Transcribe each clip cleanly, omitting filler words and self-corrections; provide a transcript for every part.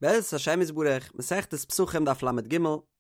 בעזרת השם יתברך, מסכת פסחים דף לג,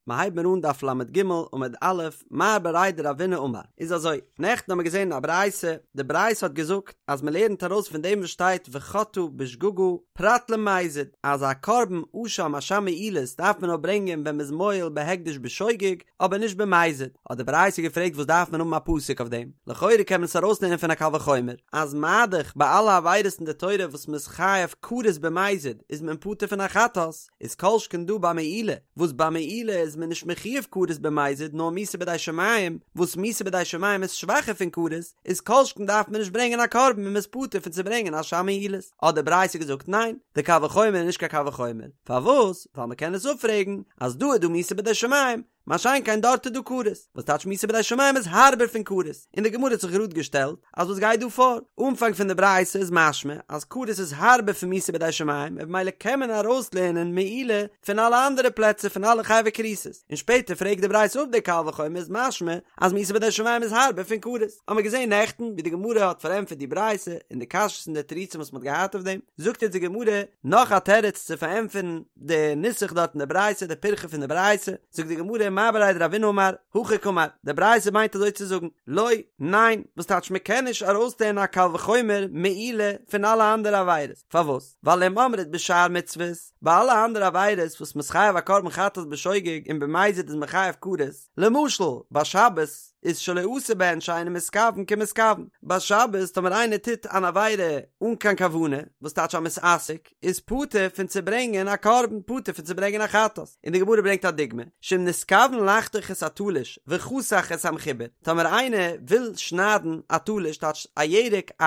מ'הייבט מיר אן דף לג עמוד א', מר בריה דרבינא אמר, איז אזוי, נעכטן האמיר געזען א ברייתא, די ברייתא האט געזאגט אז מ'לערנט ארויס פון דעם וואס שטייט וחטאה בשגגה פרט למזיד, אז א קרבן אשם אשם מעילות דארף מען נאר ברענגען ווען מ'איז מועל בהקדש בשוגג, אבער נישט במזיד, האט די ברייתא געפרעגט וואס דארף מען האבן א פסוק אויף דעם, לכאורה קען מען עס ארויסלערנען פון א קל וחומר, אז מה-דאך ביי אלע עבירות אין די תורה וואס מ'איז חייב כרת במזיד איז מען פטור פון א חטאת, איז כל שכן דא ביי מעילה, וואס ביי מעילה איז מען נישט מחויב כרת במזיד נאר מיתה בידי שמים, וואס מיתה בידי שמים איז שוואכער פון כרת, איז כל שכן דארף מען נישט ברענגען א קרבן און מ'איז פטור פון צו ברענגען אשם מעילות. האט די ברייתא געזאגט ניין, די קל וחומר איז נישט קיין קל וחומר, פארוואס? ווייל מ'קען עס אפפרעגן אז דא איז דא מיתה בידי שמים, מה שאין כן דארט איז דא כרת, וואס טייטש מיתה בידי שמים איז הארבער פון כרת, און די גמרא האט זיך גראד געשטעלט אז וואס גייט דא פאר? אנפאנג פון די ברייתא איז משמע אז כרת איז הארבער פון מיתה בידי שמים און במילא קען מען ארויסלערנען מעילה פון אלע אנדערע פלעצער פון אלע חייבי כריתות, און שפעטער פרעגט די ברייתא אפ די קל וחומר איז משמע אז מיתה בידי שמים איז הארבער פון כרת. האמיר געזען נעכטן ווי די גמרא האט פארענטפערט די ברייתא און די קשיות און די תירוצים וואס מ'האט געהאט אויף דעם, זאגט יעצט די גמרא נאך א תירוץ צו פארענטפערן די נוסח דארט אין די ברייתא, די פירכא פון די ברייתא, זאגט די גמרא מר בריה דרבינא אמר, הכי קאמר, די ברייתא מיינט אזוי צו זאגן, לא, ניין, וואס טייטש מען קען נישט ארויסלערנען א קל וחומר מעילה פון אלע אנדערע עבירות, פארוואס? ווייל אם אמרת בשאר מצוות, ביי אלע אנדערע עבירות וואס מ'איז חייב א קרבן חטאת בשוגג און במזיד איז מען חייב כרת, למשל, ביי שבת איז שלא עשה בהן שאינו מתכוון כמתכוון, ביי שבת טאמער איינער טוט אן עבירה אן קיין כוונה, וואס טייטש א מתעסק, איז פטור פון צו ברענגען א קרבן, פטור פון צו ברענגען א חטאת. און די גמרא ברענגט א דוגמא, שאם נתכוון לחתוך את התלוש וחתך את המחובר, טאמער איינער וויל שניידן א תלוש, טייטש א ירק, א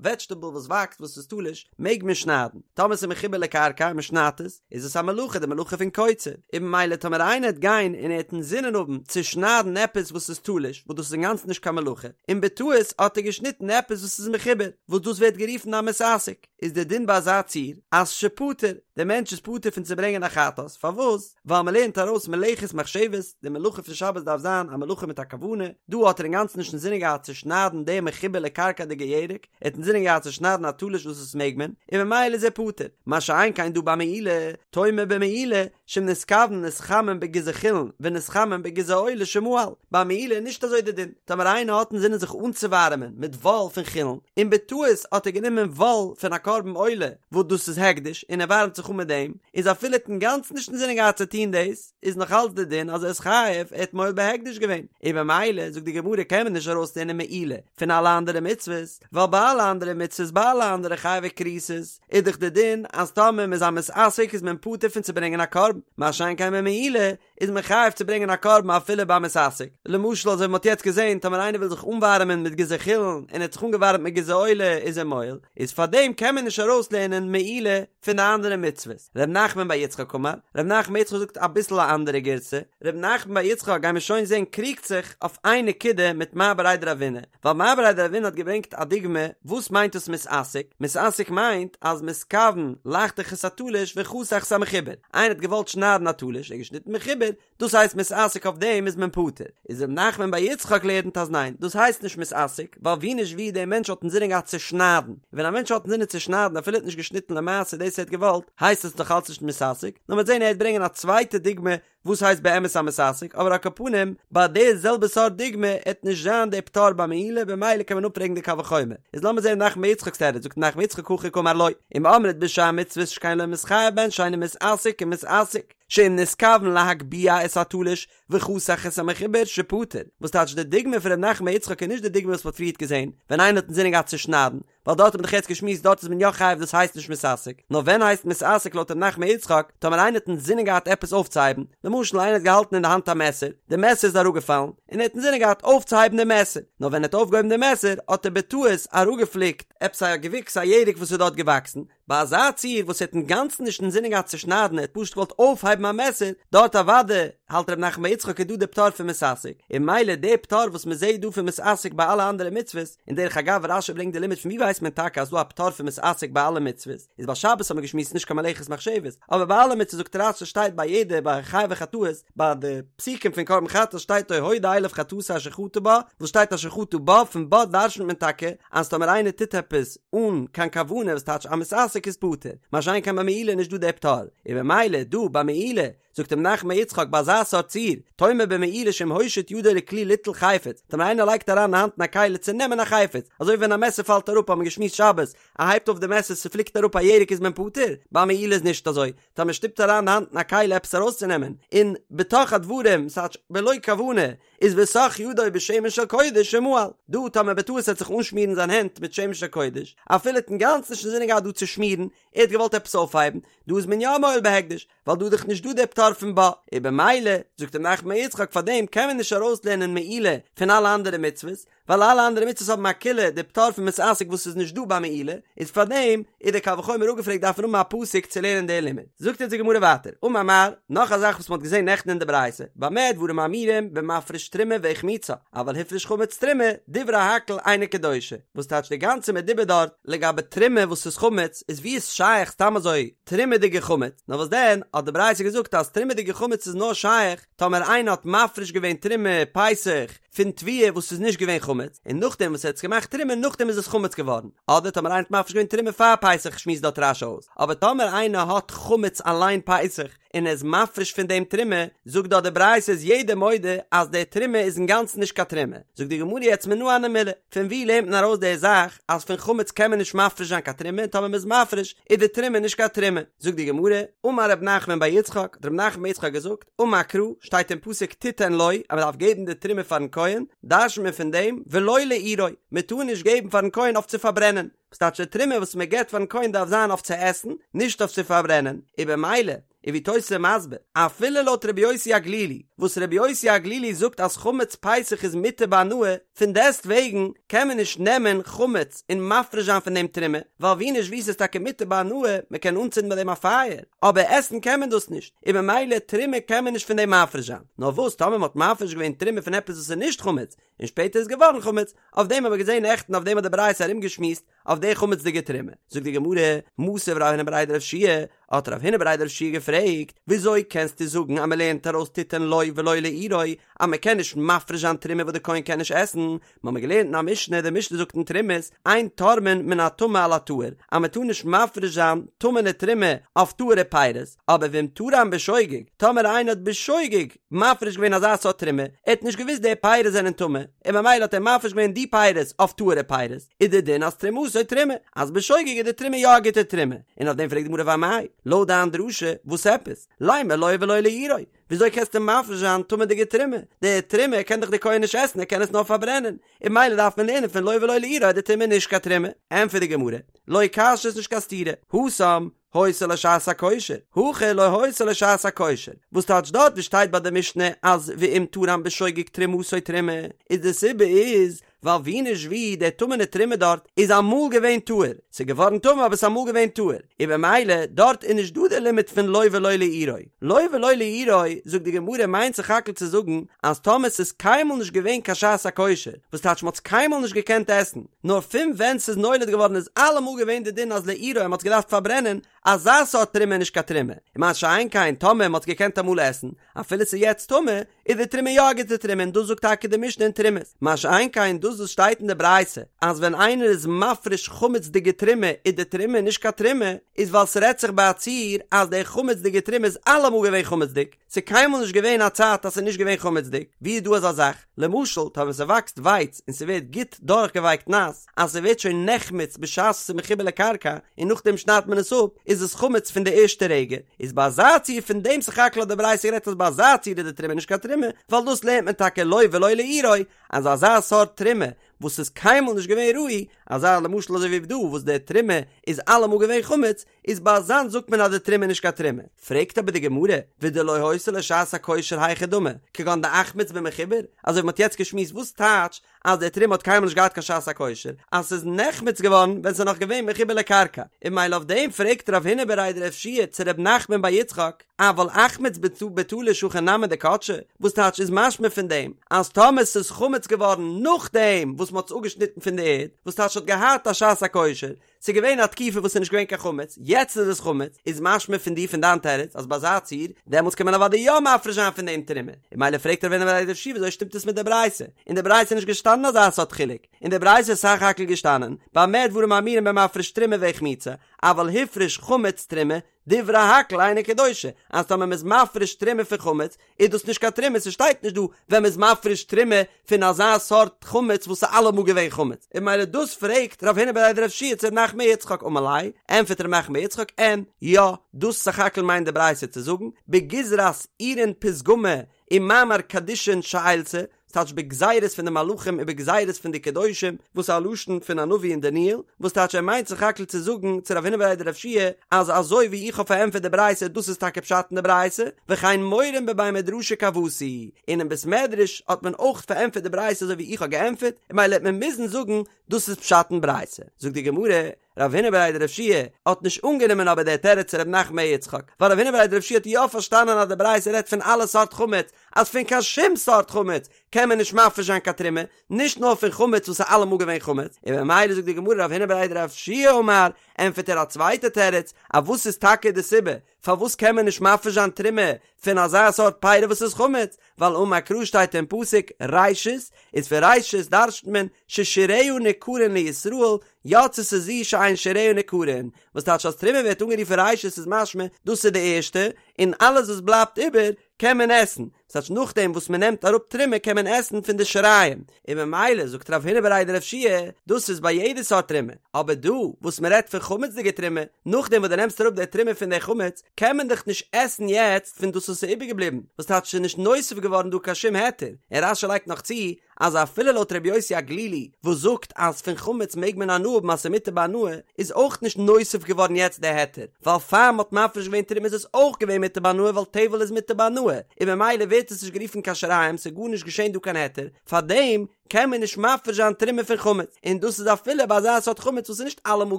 וועדזשטעבל וואס וואקסט וואס איז תלוש, מעג מען שניידן, טאמער ס'איז מחובר לקרקע און מ'שניידט עס, איז עס א מלאכה, די מלאכה פון קוצר, און ממילא טאמער איינער וועט גיין און ער וועט אינזינען האבן צו שניידן עפעס וואס איז תלוש, וואס דאס איז אינגאנצן נישט קיין מלאכה, און בטעות האט ער געשניטן עפעס וואס איז מחובר, וואס דאס ווערט גערופן א מתעסק. איז דער דין ביי אזא ציור אז שפטור, דער מענטש איז פטור פון צו ברענגען א חטאת, פארוואס? ווייל מען לערנט ארויס מלאכת מחשבת, די מלאכה פון שבת דארף זיין א מלאכה מיט א כוונה, דא האט ער אינגאנצן נישט אינזינען געהאט צו שניידן דעם מחובר לקרקע'דיגע ירק, ער האט אינזינען געהאט צו שניידן א תלוש וואס עס מעג מען, און ממילא איז ער פטור, מה שאין כן דא ביי מעילה, תאמר במעילה, שאם נתכוון להתחמם בגיזי חולין ונתחמם בגיזי עולה שמעל, ביי מעילה איז נישט אזוי די דין, טאמער איינער האט אינזינען זיך אנצואווארעמען מיט וואל פון חולין, און בטעות האט ער גענומען וואל פון א קרבן עולה וואס דאס איז הקדש און ער ווארעמט זיך אן מיט דעם, איז אפילו ער האט אינגאנצן נישט אינזינען געהאט צו טון דאס, איז נאך אלץ די דין אז ער איז חייב, ער האט מועל בהקדש געווען, און במילא זאגט די גמרא קען מען נישט ארויסלערנען מעילה פון אלע אנדערע מצוות, ווייל ביי אלע אנדערע מצוות ביי אלע אנדערע חייבי כריתות איז דאך די דין אז טאמער מ'איז א מתעסק איז מען פטור פון צו ברענגען א קרבן, מה שאין כן ביי מעילה איז מען חייב צו ברענגען א קרבן אפילו ביי מתעסק, למשל אזוי ווי מ'האט יעצט געזען טאמער איינער וויל זיך אנווארעמען מיט גיזי חולין און ער האט זיך אנגעווארעמט מיט גיזי עולה איז ער מועל, איז פארדעם קען מען נישט ארויסלערנען מעילה פון די אנדערע מצוות. ר' נחמן בר יצחק אמר, ר' נחמן בר יצחק זאגט אביסל א אנדערע גירסא, ר' נחמן בר יצחק גיימיר שוין זען קריגט זיך אויף איין נקודה מיט מר בריה דרבינא, ווייל מר בריה דרבינא האט געברענגט א דוגמא וואס מיינט דאס מתעסק, מתעסק מיינט אז מתכוון לחתוך את התלוש וחתך את המחובר, איינער האט געוואלט שניידן א תלוש, ער האט געשניטן מחובר, דאס הייסט מתעסק אויף דעם איז מען פטור, איז ר' נחמן בר יצחק לערנט אז ניין, דאס הייסט נישט מתעסק, ווייל ווי נישט ווי דער מענטש האט אינזינען געהאט צו שניידן, און ווען א מענטש האט אינזינען צו שניידן אפילו ער האט נישט געשניטן למעשה דאס ער האט געוואלט, הייסט עס נאך אלץ נישט מתעסק, נאר מ'וועט זען ער וועט ברענגען א צווייטע דוגמא וואס הייסט באמת א מתעסק, אבער על כל פנים, ביי די זעלבע סארט דוגמא עט נישט זיין די פטור ביי מעילה במילא קען מען אפפרעגן די קל וחומר. איז לאמיר זען ר' נחמן בר יצחק'ס תירוץ, זאגט ר' נחמן בר יצחק הכי קאמר לא, אם אמרת בשאר מצוות שכן לא מתחייב בהן שאינו מתעסק כמתעסק, שאם נתכוון להגביה את התלוש וחתך את המחובר שפטור, וואס טייטש די דוגמא פון ר' נחמן בר יצחק איז נישט די דוגמא וואס מ'האט פריערט געזען, ווען איינער האט אינזינען געהאט צו שניידן, ווייל דארט האט מען דאך יעצט געשמועסט דארט איז מען יא חייב דאס הייסט נישט מתעסק, נאר ווען הייסט מתעסק לויט ר' נחמן בר יצחק, טאמער איינער האט אינזינען געהאט עפעס אויפצוהייבן, למשל איינער האט געהאלטן אין די האנט א מעסער, די מעסער איז אראפגעפאלן, און ער האט אינזינען געהאט אויפצוהייבן די מעסער, נאר ווען ער האט אויפגעהויבן די מעסער האט ער בטעות אראפגעפליקט עפעס א געוויקס א ירק וואס איז דארט געוואקסן, ביי אזא ציור וואס ער האט אינגאנצן נישט אינזינען געהאט צו שניידן ער האט פשוט געוואלט אויפהייבן א מעסער, דארט אוודאי. האלט ר' נחמן בר יצחק איז דא די פטור פון מתעסק, און ממילא די פטור וואס מען זעהט דא פון מתעסק ביי אלע אנדערע מצוות, און דרך אגב רש"י ברענגט די לימוד פון ווי ווייסט מען טאקע אז דא א פטור פון מתעסק ביי אלע מצוות, איז ביי שבת האט מען געשמועסט נישט קיין מלאכת מחשבת, אבער ביי אלע מצוות זאגט רש"י שטייט ביי יעדע ביי חייבי חטאות ביי די פסוקים פון קרבן חטאת שטייט או הודע אליו חטאתו אשר חטא בה, וואס שטייט אשר חטא בה, פון בה דרשנ'ט מען טאקע אז טאמער איינער טוט עפעס אן קיין כוונה וואס טייטש א מתעסק איז פטור, מה שאין כן ביי מעילה איז נישט דא דער פטור, און במילא דא ביי מעילה זאגט ר' נחמן בר יצחק ביי אזא סארט ציור, תאמר במעילה שאם הושיט ידו לכלי ליטול חפץ, טאמער איינער לייגט אריין די האנט אין א כלי צו נעמען א חפץ, אזוי ווי ווען א מעסער פאלט אראפ האט מען געשמועסט שבת, ער הייבט אויף די מעסער ס'פליקט אראפ א ירק איז מען פטור, ביי מעילה איז נישט אזוי, טאמער מען שטופט אריין די האנט אין א כלי עפעס ארויסצונעמען, און בתוך הדברים, ס'טייטש בלא כוונה, איז וסך ידו בשמן של קודש ומעל, דא טאמער בטעות ער וועט זיך אנשמירן זיין הענט מיט שמן של קודש, אפילו האט אינגאנצן נישט אינזינען געהאט דא צו שמירן, ער האט געוואלט עפעס אויפהייבן, דא איז מען יא מועל בהקדש, ווייל דא איז דאך נישט דא דער פטור פון בה, און במילא, זאגט ר' נחמן בר יצחק פאר דעם קען מען נישט ארויסלערנען מעילה פון אלע אנדערע מצוות, ווייל אלע אנדערע מצוות האבן א קולא די פטור פון מתעסק וואס איז נישט דא ביי מעילה, איז פאר דעם איז דער קל וחומר אפגעפרעגט דארף מען האבן א פסוק צו לערנען די לימוד. זאגט אונז די גמרא ווייטער, אמר מר, נאך א זאך וואס מען האט געזען נעכטן אין די ברייתא, במה דברים אמורים במפריש תרומה והחמיצה, אבל הפריש חמץ תרומה, דברי הכל אינה קדושה, וואס טייטש די גאנצע מדובר דארט לגבי תרומה וואס איז חמץ, איז ווי איז שייך סתם אזוי תרומה'דיגע חמץ, נאר וואס דען האט די ברייתא געזאגט אז תרומה'דיגע חמץ איז נאר שייך טאמער איינער האט מפריש געווען תרומה פסח פון תבואה וואס איז נישט געווען חמץ, און נאכדעם וואס ער האט עס געמאכט תרומה נאכדעם איז עס חמץ געווארן, אדער טאמער איינער האט מפריש געווען תרומה פאר פסח שמועסט דארט רש"י אויס, אבער טאמער איינער האט חמץ אליין פסח און ער איז מפריש פון דעם תרומה, זאגט דארט די ברייתא איז יעדער מודה אז די תרומה איז אינגאנצן נישט קיין תרומה, זאגט די גמרא יעצט מנא הני מילי, פון וואו לערנט מען ארויס די זאך אז פון חמץ קען מען נישט מפריש זיין קיין תרומה און טאמער מען איז מפריש איז די תרומה נישט קיין תרומה, זאגט די גמרא, אמר רב נחמן בר יצחק, האט רב נחמן בר יצחק געזאגט, אמר קרא, שטייט אין פסוק תתן לו, אז מען דארף געבן די תרומה פארן כהן, דרש'נט מען פון דעם, ולא לאורו, מען טאר נישט געבן פארן כהן אויף צו פארברענען, וואס טייטש די תרומה וואס מען געבט פארן כהן דארף זיין אויף צו עסן, נישט אויף צו פארברענען, און במילא, און ווי תוס' איז מסביר, אפילו לויט רבי יוסי הגלילי, וואס רבי יוסי הגלילי זאגט אז חמץ פסח איז מותר בהנאה, פון דעסט וועגן קען מען נישט נעמען חמץ און מפריש זיין פון דעם תרומה, ווייל ווי נישט ווי ס'איז טאקע מותר בהנאה, מען קען אנצינדן מיט דעם א פייער, אבער עסן קען מען דאס נישט, און במילא תרומה קען מען נישט פון דעם מפריש זיין. נאר וואס טאמער מען האט מפריש געווען תרומה פון עפעס וואס איז נישט חמץ, און שפעטער איז געווארן חמץ, אויף דעם האבן מיר געזען נעכטן אויף דעם האט די ברייתא ארומגעשמועסט, אויף די חמצ'דיגע תרומה. זאגט די גמרא, מתיב רב הונא בריה דרב יהושע, האט רב הונא בריה דרב יהושע געפרעגט, וויאזוי קענסטו זאגן אז מען לערנט ארויס תתן לו ולא לאורו, אז מען קען נישט מפריש זיין תרומה וואס די כהן קען נישט עסן, מיר האבן געלערנט אין א משנה, די משנה זאגט אין תרומות, אין תורמין מן הטמא על הטהור, אז מען טאר נישט מפריש זיין טמא'נע תרומה אויף טהור'ע פירות, אבער ואם תרם בשוגג, טאמער איינער האט בשוגג מפריש געווען אזא סארט תרומה, ער האט נישט געוואוסט די פירות זענען טמא, און ממילא האט ער מפריש געווען די פירות אויף טהור'ע פירות, איז די דין אז תרומתו תרומה, אז בשוגג איז די תרומה יא א גוטע תרומה, און אויף דעם פרעגט די גמרא ואמאי, לויט דיין דרשה, וואס עפעס? לימא לו ולא לאורו, וויאזוי קענסטו מפריש זיין טמא'דיגע תרומה? די תרומה קען דאך די כהן נישט עסן, ער קען עס נאר פארברענען, און ממילא דארף מען לערנען פון לו ולא לאורו אז די תרומה איז נישט קיין תרומה. ענטפערט די גמרא, לא קשיא ס'איז נישט קיין סתירה, התם, היתה לו שעת הכושר, הכא לא היתה לו שעת הכושר, וואס טייטש דארט ווי שטייט ביי די משנה אז ואם תרם בשוגג תרומתו תרומה, איז די סיבה איז ווייל ווי נישט ווי די טמא'נע תרומה דארט איז אמאל געווען טהור, ס'איז געווארן טמא אבער ס'איז אמאל געווען טהור, און במילא דארט איז נישט דא די לימוד פון לו ולא לאורו, לו ולא לאורו זאגט די גמרא מיינט סך הכל צו זאגן אז טאמער ס'איז קיינמאל נישט געווען קיין שעת הכושר, וואס טייטש מ'האט עס קיינמאל נישט געקענט עסן, נאר פון ווען ס'איז נולד געווארן איז אלעמאל געווען די דין אז לאורו מ'האט עס געדארפט פארברענען, אזא סארט תרומה איז נישט קיין תרומה, און מה שאין כן טאמער מ'האט עס געקענט אמאל עסן, אפילו ס'איז יעצט טמא, איז די תרומה יא א גוטע תרומה און דאס זאגט טאקע די משנה אין תרומות, מה שאין כן דאס וואס שטייט אין די ברייתא אז ווען איינער איז מפריש חמצ'דיגע תרומה איז די תרומה נישט קיין תרומה, איז ווייל ס'רעדט זיך ביי א ציור אז די חמצ'דיגע תרומה איז אלעמאל געווען חמצ'דיג, ס'איז קיינמאל נישט געווען א צייט אז ס'איז נישט געווען חמצ'דיג, ווי איז דא אזא זאך? למשל, טאמער ס'וואקסט ווייץ און ס'ווערט גוט דורכגעווייקט נאס, אז ס'ווערט שוין נחמץ בשעת ס'איז מחובר לקרקע, און נאכדעם שניידט מען עס אפ, איז עס חמץ פון די ערשטע רגע, איז ביי אזא ציור פון דעם סך הכל האט די ברייתא גערעדט אז ביי אזא ציור איז די תרומה נישט קיין תרומה, ווייל דאס לערנט מען טאקע לו ולא לאורו, אז אזא סארט תרומה וואס איז קיינמאל נישט געווען ראוי, אזא למשל אזוי ווי דא וואס די תרומה איז אלעמאל געווען חמץ, איז ביי אזאנס זאגט מען אז די תרומה איז נישט קיין תרומה. פרעגט אבער די גמרא, ודלא היתה לו שעת הכושר היכי דמי, כגון דאחמיץ במחובר, אזוי ווי מ'האט יעצט געשמועסט וואס טייטש אז די תרומה האט קיינמאל נישט געהאט קיין שעת הכושר, אז ס'איז נחמץ געווארן ווען ס'איז נאך געווען מחובר לקרקע, און ממילא אויף דעם פרעגט רב הונא בריה דרב יהושע צו ר' נחמן בר יצחק, אבל אחמיץ בתלוש הכי נמי דקדשי, וואס טייטש איז משמע פון דעם אז טאמער ס'איז חמץ געווארן נאכדעם וואס מ'האט עס אפגעשניטן פון די ערד, וואס טייטש ס'האט געהאט א שעת הכושר, ס'איז געווען א תקופה וואס ס'איז נישט געווען קיין חמץ, יעצט איז עס חמץ, איז משמע פון דיר פון דיין תירוץ אז ביי אזא ציור, דעמאלטס קען מען אוודאי יא מפריש זיין פון דעם תרומה, און ממילא פרעגט רב הונא בריה דרב יהושע וויאזוי שטימט עס מיט די ברייתא, אין די ברייתא איז נישט געשטאנען אזא סארט חילוק, אין די ברייתא איז סך הכל געשטאנען, במה דברים אמורים במפריש תרומה והחמיצה, אבל הפריש חמץ תרומה, דברי הכל אינה קדושה, אז טאמער מ'איז מפריש תרומה פון חמץ, איז דאס נישט קיין תרומה, ס'שטייט נישט דא ווען מ'איז מפריש תרומה פון אזא סארט חמץ וואס איז אלעמאל געווען חמץ, און ממילא דאס פרעגט רב הונא בריה דרב יהושע צו ר' נחמן בר יצחק אמר ליה, ענפערט ר' נחמן בר יצחק אין, יא, דאס סך הכל מיינט די ברייתא צו זאגן, בגזרת עירין פתגמא ומאמר קדישין שעילתא, ס'טייטש בגזירות פון די מלאכים און בגזירות פון די קדושים, וואס איז א לשון פון א נביא אין דניאל, וואס טייטש ער מיינט סך הכל צו זאגן צו רב הונא בריה דרב יהושע אז אזוי ווי איך האב פארענטפערט די ברייתא דאס איז טאקע פשט אין די ברייתא, וכן מורין בבי מדרשא כוותי, און אין בית מדרש האט מען אויך פארענטפערט די ברייתא אזוי ווי איך האב געענטפערט, און ממילא העט מען מוזן זאגן דאס איז פשט אין ברייתא. זאגט די גמרא, רב הונא בריה דרב יהושע האט נישט אנגענומען אבער דער תירוץ צו רב נחמן בר יצחק, ווייל רב הונא בריה דרב יהושע האט יא פארשטאנען אז די ברייתא רעדט פון אלע סארט חמץ, אז פון קיין שום סארט חמץ קען מען נישט מפריש זיין קיין תרומה, נישט נאר פון חמץ וואס איז אלעמאל געווען חמץ, און ממילא זאגט די גמרא רב הונא בריה דרב יהושע אמר, ענטפערט ער א צווייטע תירוץ, אז וואס איז טאקע די סיבה פארוואס קען מען נישט מפריש זיין תרומה פון אזא סארט פירי וואס איז חמץ, ווייל אמר קרא שטייט אין פסוק ראשית, איז פון ראשית דרש'נט מען ששיריה ניכרין לישראל, יצתה זו שאין שיריה ניכרין, וואס טייטש אז תרומה ווערט אנגערופן ראשית איז משמע דאס איז די ערשטע, און אלעס וואס בלייבט איבער קען מען עסן, ס'טייטש נאכדעם וואס מען נעמט אראפ תרומה קען מען עסן פון די שיריים, און ממילא זאגט רב הונא בריה דרב יהושע דאס איז ביי יעדע סארט תרומה, אבער דא וואס מען רעדט פון חמצ'דיגע תרומה, נאכדעם וואס דו נעמסט אראפ די תרומה פון די חמץ, קען מען דאך נישט עסן יעצט פון דאס וואס איז איבערגעבליבן, וואס טייטש ס'איז נישט נוסף געווארן דא קיין שום היתר, און רש"י לייגט נאך צו אז אפילו לויט רבי יוסי הגלילי וואס זאגט אז פון חמץ מעג מען הנאה האבן אז ס'איז מותר בהנאה, איז אויך נישט נוסף געווארן יעצט די היתר, ווייל פאר מ'האט מפריש געווען תרומה איז עס אויך געווען מותר בהנאה ווייל טבל איז מותר בהנאה, און ממילא ווערט עס נישט גערופן קיין שיריים ס'איז גארנישט געשען דא קיין היתר, פארדעם קען מען נישט מפריש זיין תרומה פון חמץ, און דאס איז אפילו ביי אזא סארט חמץ וואס איז נישט אלעמאל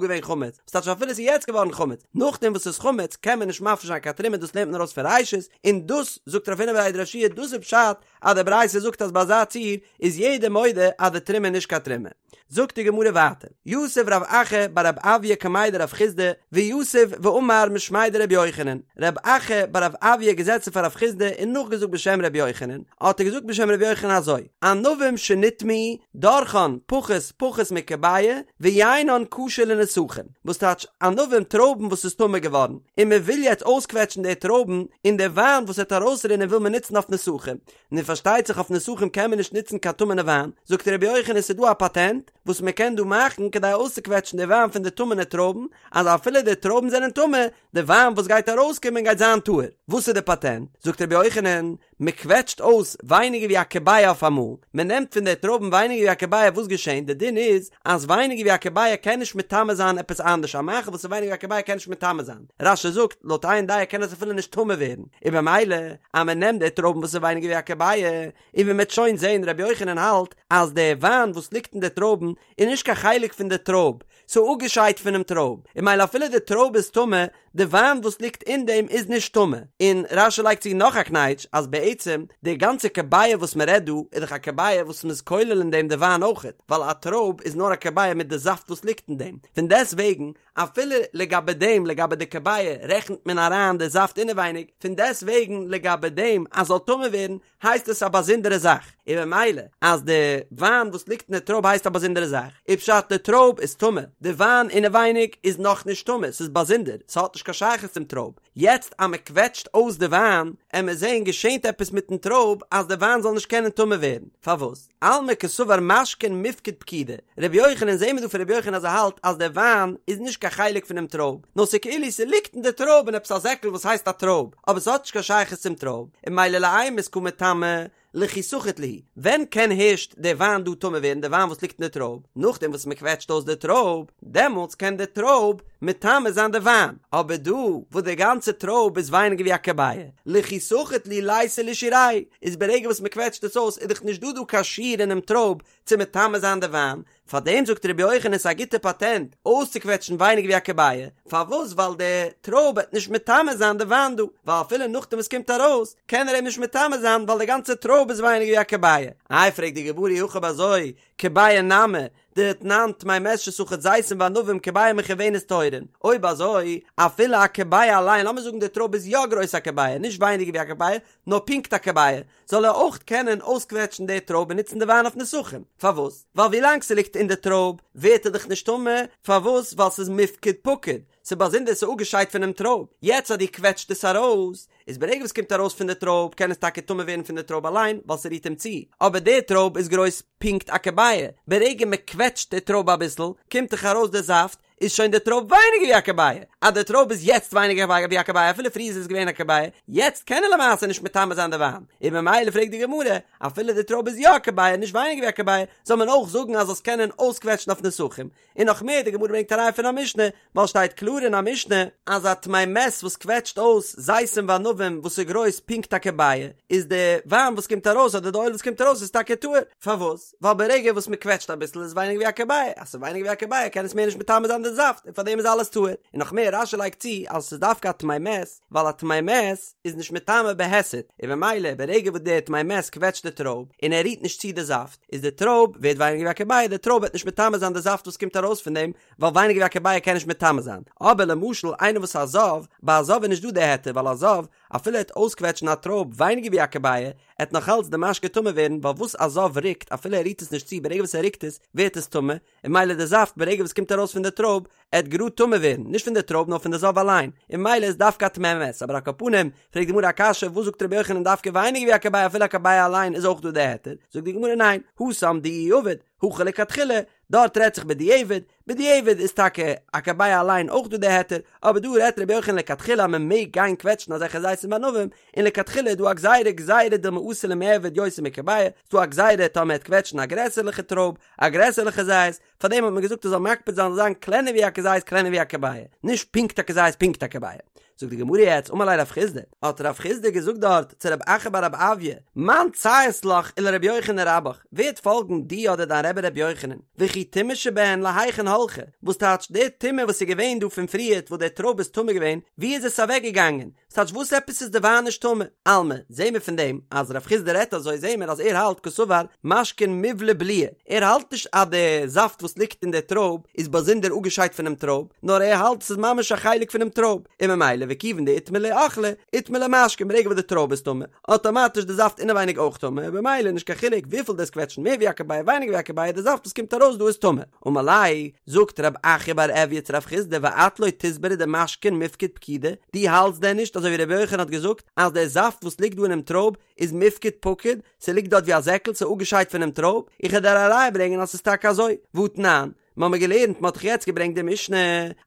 געווען חמץ, וואס טייטש אפילו עס איז יעצט געווארן חמץ, נאכדעם וואס ס'איז חמץ קען מען נישט מפריש זיין קיין תרומה דאס לערנט מען ארויס פון ראשית, און דאס זאגט רב הונא בריה דרב יהושע דאס איז פשט אז די ברייתא זאגט אז ביי אזא ציור איז יעדער מודה אז די תרומה איז נישט קיין תרומה. זאגט די גמרא ווייטער, יתיב רב אחא בר רב עויא קמיה דרב חסדא, ויתיב ואמר משמיה דרבי יוחנן, רב אחא בר רב עויא געזעצן פאר רב חסדא און נאכגעזאגט בשם רבי יוחנן, האט ער געזאגט בשם רבי יוחנן אזוי, ענבים שנטמאו, דורכן פחות פחות מכביעה, ויינן כשר לנסכים, וואס טייטש ענבים טרויבן וואס איז טמא געווארן, און מען וויל יעצט אויסקוועטשן די טרויבן, און די וויין וואס וועט ארויסרינען וויל מען נוצן אויף נסכים, נו פארשטייט זיך אויף נסכים קען מען נישט נוצן קיין טמא'נע וויין, זאגט רבי יוחנן ס'איז דא א פאטענט וואס מען קען דא מאכן כדי אויסצוקוועטשן די וויין פון די טמא'נע טרויבן, אז אפילו די טרויבן זענען טמא, די וויין וואס גייט ארויסקומען גייט זיין טהור. וואס איז די פאטענט? זאגט רבי יוחנן, מען קוועטשט אויס ווייניגער ווי א כביעה אויף אמאל, מען נעמט פון די טרויבן ווייניגער ווי א כביעה וואס געשענט? די דין איז אז ווייניגער ווי א כביעה קען נישט מטמא זיין עפעס אנדערש, א מאכל וואס איז ווייניגער ווי א כביעה קען נישט מטמא זיין, רש"י זאגט, לויט איין דעה קען עס אפילו נישט טמא ווערן, און במילא אז מען נעמט די טרויבן וואס איז ווייניגער ווי א כביעה, און ווי מען וועט שוין זען רבי יוחנן האלט אז די וויין וואס ליגט אין די טרויבן איז נישט קיין חלק פון די טרויב, ס'איז אפגעשיידט פונעם טרויב, און ממילא אפילו די טרויב איז טמא, די וויין וואס ליגט אין דעם איז נישט טמא. און רש"י לייגט צו נאך א קנייטש, אז בעצם די גאנצע כביעה וואס מען רעדט דא, איז דאך א כביעה וואס מ'איז כולל אין דעם די וויין אויכעט, ווייל א טרויב איז נאר א כביעה מיט די זאפט וואס ליגט אין דעם, פון דעסט וועגן, אפילו לגבי דעם, לגבי די כביעה, רעכנט מען אריין די זאפט אינעווייניג, פון דעסט וועגן לגבי דעם אז זאל טמא ווערן, הייסט עס א באזונדערע זאך, און ממילא אז די וויין וואס ליגט אין די טרויב הייסט א באזונדערע זאך, איז פשט די טרויב איז טמא, די וויין אינעווייניג איז נאכנישט טמא, ס'איז באזונדער, ס'האט נישט קיין שייכות צום טרויב, יעצט אז מ'קוועטשט אויס די וויין, עמיר זעהן געשענט עפעס מיטן טרויב אז די וויין זאל נישט קענען טמא ווערן, פארוואס? אלמא קסבר משקין מיפקד פקידי, רבי יוחנן זעהן מיר דא פון רבי יוחנן אז ער האלט אז די וויין איז נישט קיין חלק פונעם טרויב, נאר ס'איז כאילו ס'ליגט אין די טרויב אין עפעס א זעקל וואס הייסט א טרויב, אבער ס'האט נישט קיין שייכות צום טרויב, און ממילא לאימת קא מטמא. לכי סחיט להו, ווען קען הערשט די וויין דא טמא ווערן, די וויין וואס ליגט אין די טרויב, נאכדעם וואס מען קוועטשט אויס די טרויב, דעמאלטס קען די טרויב מטמא זיין די וויין, אבער דא וואס די גאנצע טרויב איז ווייניגער ווי א כביעה, לכי סחיט להו ליתיה לשיעוריה, איז ברגע וואס מען קוועטשט עס אויס איז דאך נישט דא דא קיין שיעור אינעם טרויב צו מטמא זיין די וויין, פארדעם זאגט רבי יוחנן ס'איז א גוטע פאטענט אויסצוקוועטשן ווייניגער ווי א כביעה, פארוואס ווייל די טרויב וועט נישט מטמא זיין די וויין דא, ווייל אפילו נאכדעם וואס קומט ארויס קען ער אים נישט מטמא זיין ווייל די גאנצע טרויב איז ווייניגער ווי א כביעה. איי פרעגט די גמרא אי הכי אויב אזוי כביעה נמי דתנן טמא מת שסחט זיתים וענבים כביעה מכוונת טהורין, אויב אזוי אפילו א כביעה אליין לאמיר זאגן די טרויב איז יא גרויס א כביעה נישט ווייניגער ווי א כביעה נאר פונקט א כביעה זאל ער אויך קענען אויסקוועטשן די טרויב און נוצן די וויין אויף נסכים, פארוואס? ווייל ווילאנג ס'ליגט אין די טרויב ווערט ער דאך נישט טמא, פארוואס? ווייל ס'איז מיפקד פקיד, ס'איז באזונדער ס'איז אפגעשיידט פונעם טרויב, יעצט אז דו קוועטשט עס ארויס, איז ברגע וואס ס'קומט ארויס פון די טרויב קען עס טאקע טמא ווערן פון די טרויב אליין ווייל ס'רירט אים צו, אבער די טרויב איז גרויס פונקט א כביעה, ברגע מ'קוועטשט די טרויב אביסל קומט דאך ארויס די זאפט, איז שוין די טרויב ווייניגער ווי א כביעה, אז די טרויב איז יעצט ווייניגער ווי א כביעה אפילו פריער איז עס געווען א כביעה, יעצט קען ער למעשה נישט מטמא זיין די וויין, און ממילא פרעגט די גמרא, אפילו די טרויב איז יא א כביעה נישט ווייניגער ווי א כביעה, זאל מען אויך זאגן אז זאלסט קענען אויסקוועטשן אויף נסכים, און נאך מער די גמרא ברענגט א ראיה פון א משנה, ווייל שטייט קלאר אין א משנה, אז א טמא מת וואס קוועטשט אויס זיתים וענבים וואס איז גרויס פונקט א כביעה, איז די וויין וואס קומט ארויס אדער די אויל וואס קומט ארויס איז טאקע טהור, פארוואס? ווייל ברגע וואס מען קוועטשט אביסל איז ווייניגער ווי א כביעה, אז ס'איז ווייניגער ווי א כביעה קען עס מער נישט מטמא זיין די זאפט און פארדעם איז אלעס טהור, און נאך מער רש"י לייגט צו אז עס איז דווקא א טמא מת ווייל א טמא מת איז נישט מטמא בהיסט, און ממילא ברגע וואס דער טמא מת קוועטשט די טרויב און ער רירט נישט צו די זאפט איז די טרויב ווערט ווייניגער ווי א כביעה, די טרויב וועט נישט מטמא זיין די זאפט וואס קומט ארויס פון דעם ווייל ווייניגער ווי א כביעה קען נישט מטמא זיין, אבער למשל איינער וואס א זב, ביי א זב איז נישט דא די היתר ווייל א זב אפילו ער וועט אויסקוועטשן א טרויב ווייניגער ווי א כביעה עט נאך אלץ די משקה טמא ווערן ווייל וואס א זב רוקט אפילו ער רירט עס נישט צו ברגע וואס ער רוקט עס ווערט עס טמא און ממילא די זאפט ברגע וואס קומט ארויס פון די טרויב עט גראד טמא ווערן נישט פון די טרויב נאר פון די זב אליין און ממילא איז דווקא א טמא מת אבער על כל פנים פרעגט די גמרא א קשיא וואס זאגט רבי יוחנן דווקא ווייניגער ווי א כביעה אפילו א כביעה אליין איז אויך דא די היתר זאגט די גמרא ניין התם דאיהו עביד הכא לכתחילה דארט רעדט זיך בדיעבד, בדיעבד איז טאקע א כביעה אליין אויך דא די היתר, אבער דא רעדט רבי יוחנן לכתחילה אז מען מעג גיין קוועטשן אזעלכע זיתים וענבים, און לכתחילה איז דא א גזירה גזירה דילמא אתי למיעבד יותר מכביעה, ס'דא א גזירה טאמער מ'עט קוועטשן א גרעסערליכע טרויב, א גרעסערליכע זית, פארדעם האט מען געזאגט ער זאל מקפיד זיין זאל זיין קלענער ווי א כזית קלענער ווי א כביעה, נישט פונקט א כזית פונקט א כביעה. זאגט די גמרא יעצט אמר ליה רב חסדא, האט רב חסדא געזאגט דארט צו רב אחא בר רב עויא, מאן ציית לך ולרבי יוחנן רבך, ווער עט פאלגן דיר אדער דיין רבי רבי יוחנן, וכי טומאה שבהן להיכן הלכה, וואס טייטש די טומאה וואס איז געווען דא פון פריערט וואס די טרויב איז טמא געווען, ווי איז עס אוועק געגאנגען, ס'טייטש וואס עפעס איז די וויין נישט טמא? אלמא, זעהן מיר פון דעם אז רב חסדא רעדט אזוי זעהן מיר אז ער האלט קסבר משקין מיבלע בליעי, ער האלט נישט אז די זאפט וואס ליגט אין די טרויב איז באזונדער אפגעשיידט פונעם טרויב, נאר ער האלט ס'איז ממש א חלק פונעם טרויב, און ממילא וכיוון דאיטמי להו אוכלא, איטמי להו משקין ברגע וואס די טרויב איז טמא, אטאמאטיש די זאפט אינעווייניג אויך טמא, און במילא נישט קיין חילוק וויפיל דו'סט קוועטשן מער ווי א כביעה ווייניגער ווי א כביעה די זאפט וואס קומט ארויס דא איז טמא. אמר ליה, זאגט רב אחא בר עויא צו רב חסדא ואת לא תסברא דמשקין מיפקד פקידי, דו האלטסט דען נישט אזוי ווי רבי יוחנן האט געזאגט אז דער זאפט וואס ליגט דא אינעם טרויב איז מיפקד פקיד, ס'ליגט דארט ווי א זעקל, ס'איז אפגעשיידט פונעם טרויב, איך וועל דיר א ראיה ברענגען אז ס'איז טאקע אזוי, והתנן, מ'האמיר געלערנט, מ'האט דאך יעצט געברענגט די משנה,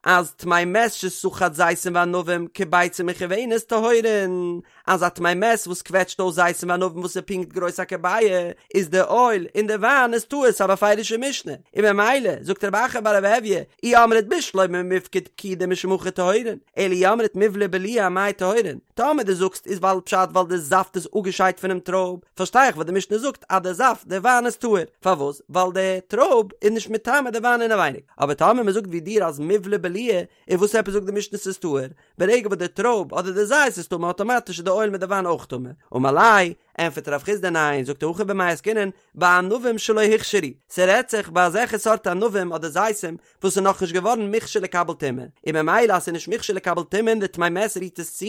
אז טמא מת שסחט זיתים וענבים כביצה מכוונת טהורין, אז א טמא מת וואס קוועטשט אויס זיתים וענבים וואס איז פונקט גרויס א כביעה, איז די אויל און די וויין איז טהור, ס'איז א בפירוש'ע משנה, און ממילא, זאגט רב אחא בר רב עויא, אי אמרת בשלמא מיפקד פקידי משום הכי טהורין, אלא אי אמרת מיבלע בליעי אמאי טהורין, טאמער דו זאגסט איז ווייל פשט ווייל די זאפט איז אפגעשיידט פונעם טרויב, פארשטיי איך וואס די משנה זאגט אז די זאפט, די וויין איז טהור, פארוואס? ווייל די טרויב איז נישט מטמא די וויין אינעווייניג, אבער טאמער מען זאגט ווי דיר אז מיבלע בליעי, איז וואס עפעס זאגט די משנה ס'איז טהור? ברגע וואס די טרויב אדער די זית איז טמא אטאמאטיש איז די אויל מיט די וויין אויך טמא, אמר ליה, ענפערט רב חסדא ניין, זאגט ער הכא במאי עסקינן, בענבים שלא הוכשרו, ס'רעדט זיך ביי אזעלכע סארט ענבים אדער זיתים וואס איז נאכנישט געווארן מוכשר לקבל טומאה, און ממילא אז ס'איז נישט מוכשר לקבל טומאה און די טמא מת רירט עס צו,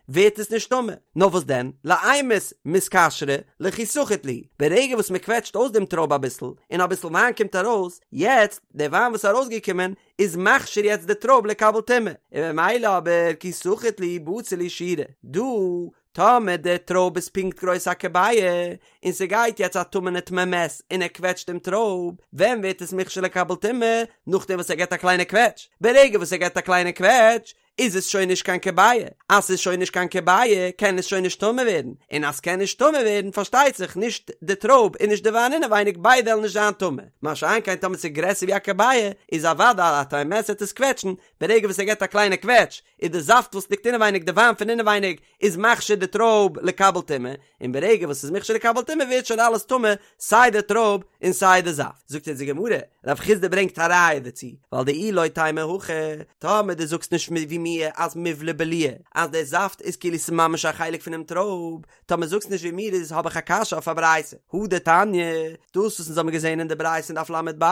ווערט עס נישט טמא. נאר וואס דען, לאימת מתכשרי לכי סחיט להו, ברגע וואס מ'קוועטשט אויס דעם טרויב אביסל, און אביסל וויין קומט ארויס, יעצט, דער וויין וואס איז ארויסגעקומען, איז מכשיר יעצט די טרויב לקבל טומאה, און ממילא אבער כי סחיט להו בציר להו שיעורא, דא טאמער די טרויב איז פונקט גרויס א כביעה, און ס'גייט יעצט א טמא'נע טמא מת און ער קוועטשט דעם טרויב, ווען ווערט עס מוכשר לקבל טומאה? נאכדעם וואס ער געבט א קליינע קוועטש, ברגע וואס ער געבט א קליינע קוועטש, איז עס שוין נישט קיין כביעה, אז ס'איז שוין נישט קיין כביעה קען עס שוין נישט טמא ווערן, און אז ס'קען נישט טמא ווערן פארשטייט זיך נישט די טרויב און נישט די וויין אינעווייניג ביידע וועלן נישט זיין טמא, מה שאין כן טאמער ס'איז גרעסער ווי א כביעה איז אוודאי א תימסר וועט עס קוועטשן, ברגע וואס ער געבט א קליינע קוועטש איז די זאפט וואס ליגט אינעווייניג די וויין פון אינעווייניג איז מכשיר די טרויב לקבל טומאה, און ברגע וואס ס'איז מכשיר לקבל טומאה ווערט שוין אלעס טמא סיי די טרויב און סיי די זאפט. זאגט אונז די גמרא, רב חסדא ברענגט א ראיה דערצו, ווייל דאי לא תימא הכי, טאמער דו זאגסט נישט ווי מיר אז מיבלע בליעי, אז די זאפט איז כאילו ס'איז ממש א חלק פונעם טרויב, טאמער זאגסט נישט ווי מיר איז האב איך א קשיא אויף א ברייתא, הא דתניא, דאס וואס אונז האבן געזען אין די ברייתא אין דף ל"ב,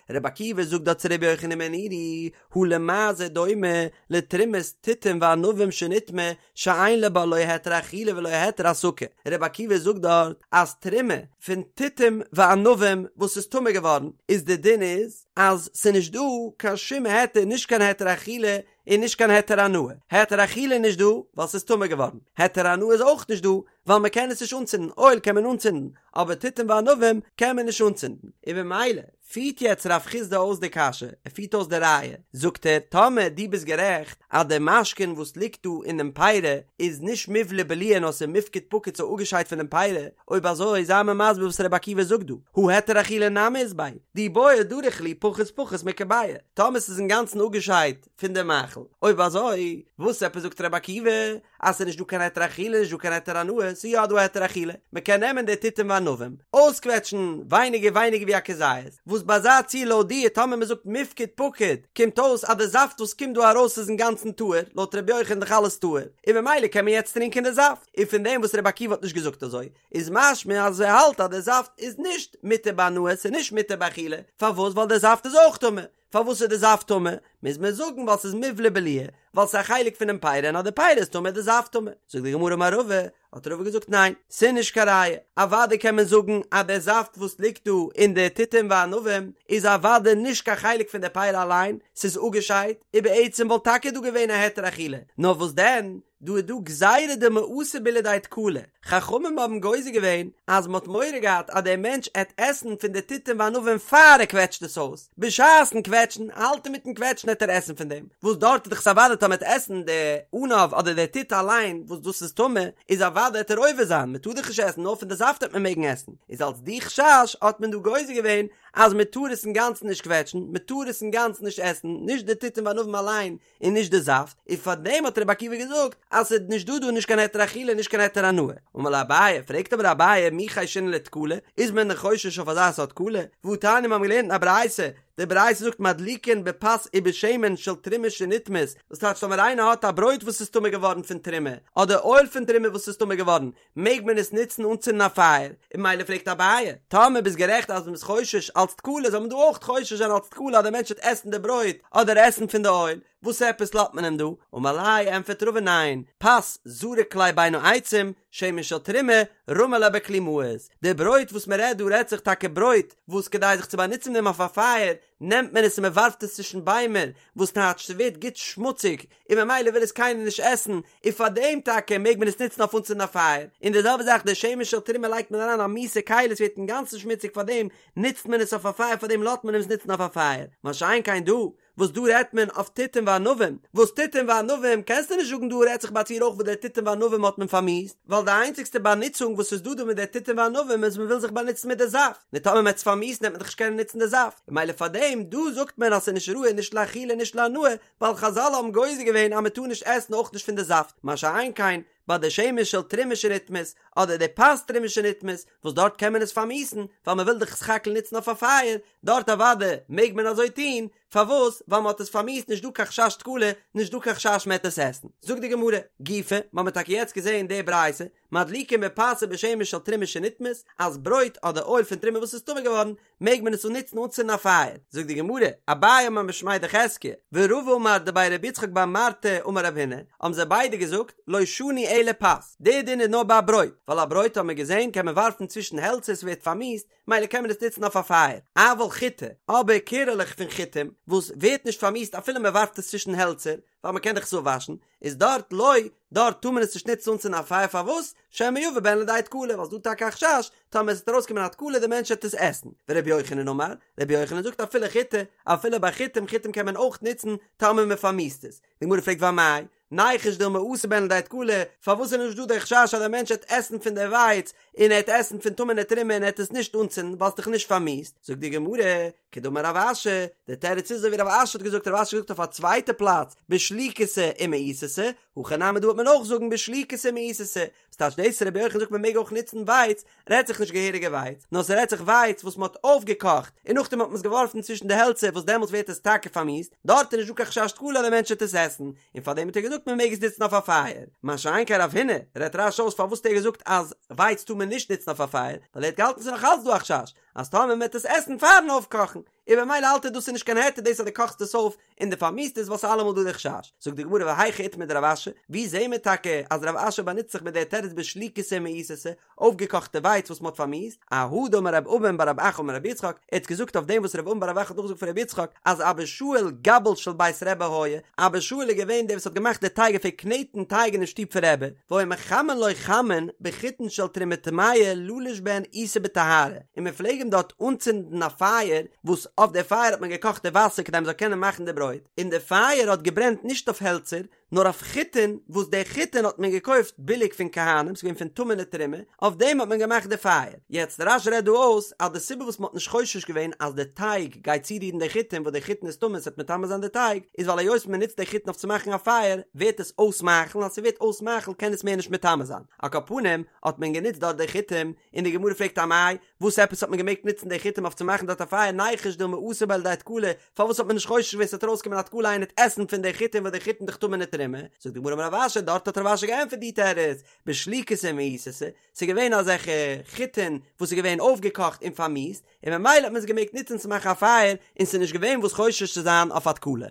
רבי עקיבא זאגט דארט צו רבי יוחנן בן נורי, הא למה זה דומה לתרומת תותים וענבים שנטמאה שאין לה בה לא היתר אכילה ולא היתר הסקה, רבי עקיבא זאגט דארט אז תרומה פון תותים וענבים וואס איז טמא געווארן איז די דין איז אז ס'איז נישט דא קיין שום היתר נישט קיין היתר אכילה און נישט קיין היתר הנאה, היתר אכילה איז נישט דא ווייל ס'איז טמא געווארן, היתר הנאה איז אויך נישט דא ווייל מ'קען עס נישט אנצינדן, אויל קען מען אנצינדן אבער תותים וענבים קען מען נישט אנצינדן, און במילא פירט יעצט רב חסדא אויס די קשיא, ער פירט אויס די ראיה, זאגט ער, טאמער דו ביסט גערעכט אז די משקין וואס ליגט דא אינעם פירי איז נישט מיבלע בליעי נאר ס'איז מיפקד פקיד ס'איז אפגעשיידט פונעם פירי, אויב אזוי זיי מיר מסביר וואס רבי עקיבא זאגט דא, הא היתר אכילה נמי אית ביה, דאי בעי דריך להו פחות פחות מכביעה, טאמער ס'איז אינגאנצן אפגעשיידט פון די מאכל, אויב אזוי וואס עפעס זאגט רבי עקיבא אז ס'איז נישט דא קיין היתר אכילה נישט דא קיין היתר הנאה, ס'איז יא דא היתר אכילה, מ'קען נעמען די תותים וענבים, אויסקוועטשן ווייניגער ווייניגער ווי א כזית, וואס ביי אזא ציור לויט דיר טאמער מ'זאגט מיפקד פקיד, קומט אויס אז די זאפט וואס קומט דא ארויס איז אינגאנצן טהור, לויט ר' יוחנן דאך אלעס טהור, און ממילא קען מען יעצט טרינקען די זאפט, און פון דעם וואס ר' עקיבא האט נישט געזאגט אזוי, איז משמע אז ער האלט אז די זאפט איז נישט מותר בהנאה, ס'איז נישט מותר באכילה, פארוואס? ווייל די זאפט איז אויך טמא, פארוואס איז די זאפט טמא? מוז מען זאגן ווייל ס'איז מיבלע בליעי, ווייל ס'איז א חלק פונעם פירי און אז די פירי איז טמא איז די זאפט טמא. זאגט די גמרא אמר רבא, האט רבא געזאגט ניין, ס'איז נישט קיין ראיה, אוודאי קען מען זאגן אז די זאפט וואס ליגט דא אין די תותים וענבים איז אוודאי נישט קיין חלק פון די פירי אליין, ס'איז אפגעשיידט, ובעצם וואלט טאקע דא געווען א היתר אכילה, נאר וואס דען, דא איז דא גזירה דילמא אתי ביה לידי תקלה, חכמים האבן גוזר געווען אז מען האט מורא געהאט אז דער מענטש עט עסן פון די תותים וענבים פאר ער קוועטשט עס אויס, בשעת'ן קוועטשן, האלט אינמיטן קוועטשן עט ער עסן פון דעם, וואס דארט איז דאך אוודאי טאמער עט עסן די ענב אדער די תות אליין וואס דאס איז טמא, איז אוודאי עט ער עובר זיין, מען טאר דאך נישט עסן נאר פון די זאפט עט מען מעגן עסן, איז אלס די חשש האט מען דא גוזר געווען אז מען טאר עס אינגאנצן נישט קוועטשן, מען טאר עס אינגאנצן נישט עסן, נישט די תותים וענבים אליין, און נישט די זאפט, און פאר דעם האט רבי עקיבא געזאגט אז ס'איז נישט דא דא נישט קיין היתר אכילה נישט קיין היתר הנאה. אמר ליה אביי, פרעגט אבער אביי מי חיישינן לתקלה, איז מען דען חושש אויף אזא סארט תקלה? והתניא מיר האבן געלערנט אין א ברייתא, די ברייתא זאגט מדליקין בפת ובשמן של תרומה שנטמאת, וואס טייטש טאמער איינער האט א ברויט וואס איז טמא געווארן פון תרומה, אדער אויל פון תרומה וואס איז טמא געווארן, מעג מען עס נוצן אנצינדן א פייער, און ממילא פרעגט אביי, טאמער ביסט גערעכט אז מ'איז חושש אלץ תקלה זאל מען דא אויך חושש זיין אלץ תקלה אז דער מענטש וועט עסן די ברויט אדער עסן פון די אויל, וואס עפעס לאזט מען אים דא? אמר ליה, ענטפערט רבא ניין, פת זריק ליה בין העצים, שמן של תרומה, רמי ליה בכלי מאוס, די ברויט וואס מ'רעדט דא רעדט זיך טאקע ברויט וואס כדי זיך צו באנוצן מיט דעם אויף א פייער נעמט מען עס און מ'ווארפט עס צווישן ביימער, וואס טייטש ס'ווערט גוט שמוציג, און ממילא וויל עס קיינער נישט עסן, און פאר דעם טאקע מעג מען עס נוצן אויף אנצינדן א פייער, און די זעלבע זאך די שמן של תרומה לייגט מען אריין א מיאוסע כלי עס ווערט אינגאנצן שמוציג פאר דעם נוצט מען עס אויף א פייער פאר דעם לאזט מען עס נוצן אויף א פייער, מה שאין כן דא וואס דא רעדט מען אויף תותים וענבים, וואס תותים וענבים קענסטו נישט זאגן דא רעדט זיך ביי א ציור אויך וואס די תותים וענבים האט מען פארמיאוסט, ווייל די איינציגסטע באנוצונג וואס איז דא דא מיט די תותים וענבים איז מען וויל זיך באנוצן מיט די זאפט, נו טאמער מען וועט עס פארמיאוסן וועט מען דאך נישט קענען נוצן די זאפט, ממילא פאר דעם דא זאגט מען אז ס'איז נישט ראוי נישט לאכילה נישט להנאה, ווייל חזל האבן גוזר געווען אז מען טאר נישט עסן אויך נישט פון די זאפט, מה שאין כן ביי די שמן של תרומה שנטמאת, אדער די פת תרומה שנטמאת, וואס דארט קען מען עס פארמיאוסן, ווייל מען וויל דאך סך הכל נוצן אויף א פייער, דארט אוודאי מעג מען אזוי טון, פארוואס? ווייל מען האט עס פארמיאוסט נישט דא קיין חשש תקלה, נישט דא קיין חשש מען וועט עס עסן. זאגט די גמרא, גופא, מען האט טאקע יעצט געזען די ברייתא, מדליקין בפת ובשמן של תרומה שנטמאת, אז ברויט אדער אויל פון תרומה וואס איז טמא געווארן, מעג מען עס אננוצן אנצינדן א פייער. זאגט די גמרא, אביי אמר משמיה דחזקיה, ורבא אמר דבי רבי יצחק בר מרתא אמר רב הונא, האבן זיי ביידע געזאגט, לא שנו אלא פת, די דין איז נאר ביי ברויט, ווייל א ברויט האט מען געזען קען מען ווארפן צווישן העלצער ס'ווערט פארמיאוסט, מילא קען מען עס נוצן אויף א פייער, אבל חיטי, אבער קערעלעך פון חיטים, וואס ווערט נישט פארמיאוסט אפילו מען ווארפט עס צווישן העלצער, ווייל מען קען דאך עס אפוואשן, איז דארט לא, דארט טאר מען עס נישט נוצן אנצינדן א פייער פארוואס? שמא יבא בהן לידי תקלה, ווייל ס'דא טאקע א חשש, טאמער עס וועט ארויסקומען א תקלה די מענטש וועט עס עסן, ורבי יוחנן אמר, רבי יוחנן זאגט אפילו חיטי, אפילו ביי חיטים, חיטים קען מען אויך נוצן טאמער מען פארמיאוסט עס. די גמרא פרעגט ואמאי, ניחוש דילמא אתי בהן לידי תקלה, פארוואס איז נישט דא דער חשש אז דער מענטש העט עסן פון די ווייץ און ער העט עסן פון טמא'נע תרומה און ער העט עס נישט אנצינדן ווייל ס'איז דאך נישט פארמיאוסט? זאגט די גמרא, כדאמר רב אשי, דער תירוץ איז אזוי ווי רב אשי האט געזאגט, רב אשי האט געזאגט אויף א צווייטע פלאץ, בשליקתא ומאיסתא, הכא נמי דא וועט מען אויך זאגן בשליקתא ומאיסתא, ס'טייטש דאס רבי יוחנן זאגט מען מעג אויך נוצן ווייץ, רעדט זיך נישט געהעריגע ווייץ, נאר ס'רעדט זיך ווייץ וואס מ'האט אויפגעקאכט און נאכדעם האט מען עס געווארפן צווישן די העלצער וואס דעמאלטס ווערט עס טאקע פארמיאוסט, דארט איז נישט דא קיין חשש תקלה אז דער מענטש וועט עס עסן, און פארדעם האט ער געזאגט מען מעג עס נוצן אויף א פייער. מה שאין כן רב הונא, רעדט רש"י אויס פארוואס האט ער געזאגט אז ווייץ טאר מען נישט נוצן אויף א פייער, ווייל ער האט געהאלטן ס'איז נאך אלץ דא א חשש אז טאמער מען וועט עס עסן פארן אויפקאכן, און במילא האלט ער דאס איז נישט קיין היתר דאס אז דו קאכסט עס אויף און דו פארמיאוסט עס ווייל ס'איז אלעמאל דא די חשש. זאגט די גמרא והיכא איתמר דרב אשי, ווי זעהן מיר טאקע אז רב אשי באנוצט זיך מיט די תירוץ בשליקתא ומאיסתא, אויפגעקאכטע ווייץ וואס מ'האט פארמיאוסט, אהא דאמר רב אבין בר רב אחא אמר רבי יצחק, ער האט געזאגט אויף דעם וואס רב אבין בר רב אחא האט נאכגעזאגט פון רבי יצחק, אז אבא שאול גבל של בית רבי היה, אבא שאול איז געווען דער וואס האט געמאכט די טייג ער פלעגט קנעטן טייג אינעם שטוב פון רבי, והיו מחמין לו חמין בחיטין של תרומה טמאה ללוש בהן עיסה בטהרה, און מען פלעג אים דארט אנצינדן א פייער, וואס אויף די פייער האט מען געקאכט די וואסער כדי מען זאל קענען מאכן די ברויט, און די פייער האט געברענט נישט אויף העלצער, נאר אויף חיטין, וואס די חיטין האט מען געקויפט ביליג פון כהנים, ס'איז געווען פון טמא'נע תרומה, אויף דעם האט מען געמאכט די פייער. יעצט, רש"י רעדט דא אויס אז די סיבה וואס מ'האט נישט חושש געווען אז די טייג גייט צורירן די חיטין וואס די חיטין איז טמא און ס'וועט מטמא זיין די טייג, איז ווייל היות מ'נוצט די חיטין אויף צו מאכן א פייער, ווערט עס אויס מאכל, אז ס'ווערט אויס מאכל קען עס מער נישט מטמא זיין. על כל פנים, האט מען גענוצט דארט די חיטים, און די גמרא פרעגט אמאי, וואס עפעס האט מען געמעגט נוצן די חיטים אויף צו מאכן דארט א פייער ניחוש דילמא אתי בהו לידי תקלה, פארוואס האט מען נישט חושש געווען ס'וועט ארויסקומען א תקלה איינער וועט עסן פון די חיטים וואס די חיטים דאך טמא'נע תרומה, זאגט די גמרא אמר רב אשי דארט האט רב אשי געענטפערט די תירוץ, בשליקתא ומאיסתא, ס'איז געווען אזעלכע חיטין וואס איז געווען אויפגעקאכט און פארמיאוסט, און ממילא האט מען עס געמעגט נוצן צו מאכן א פייער, און ס'איז נישט געווען וואס חושש צו זיין אויף א תקלה.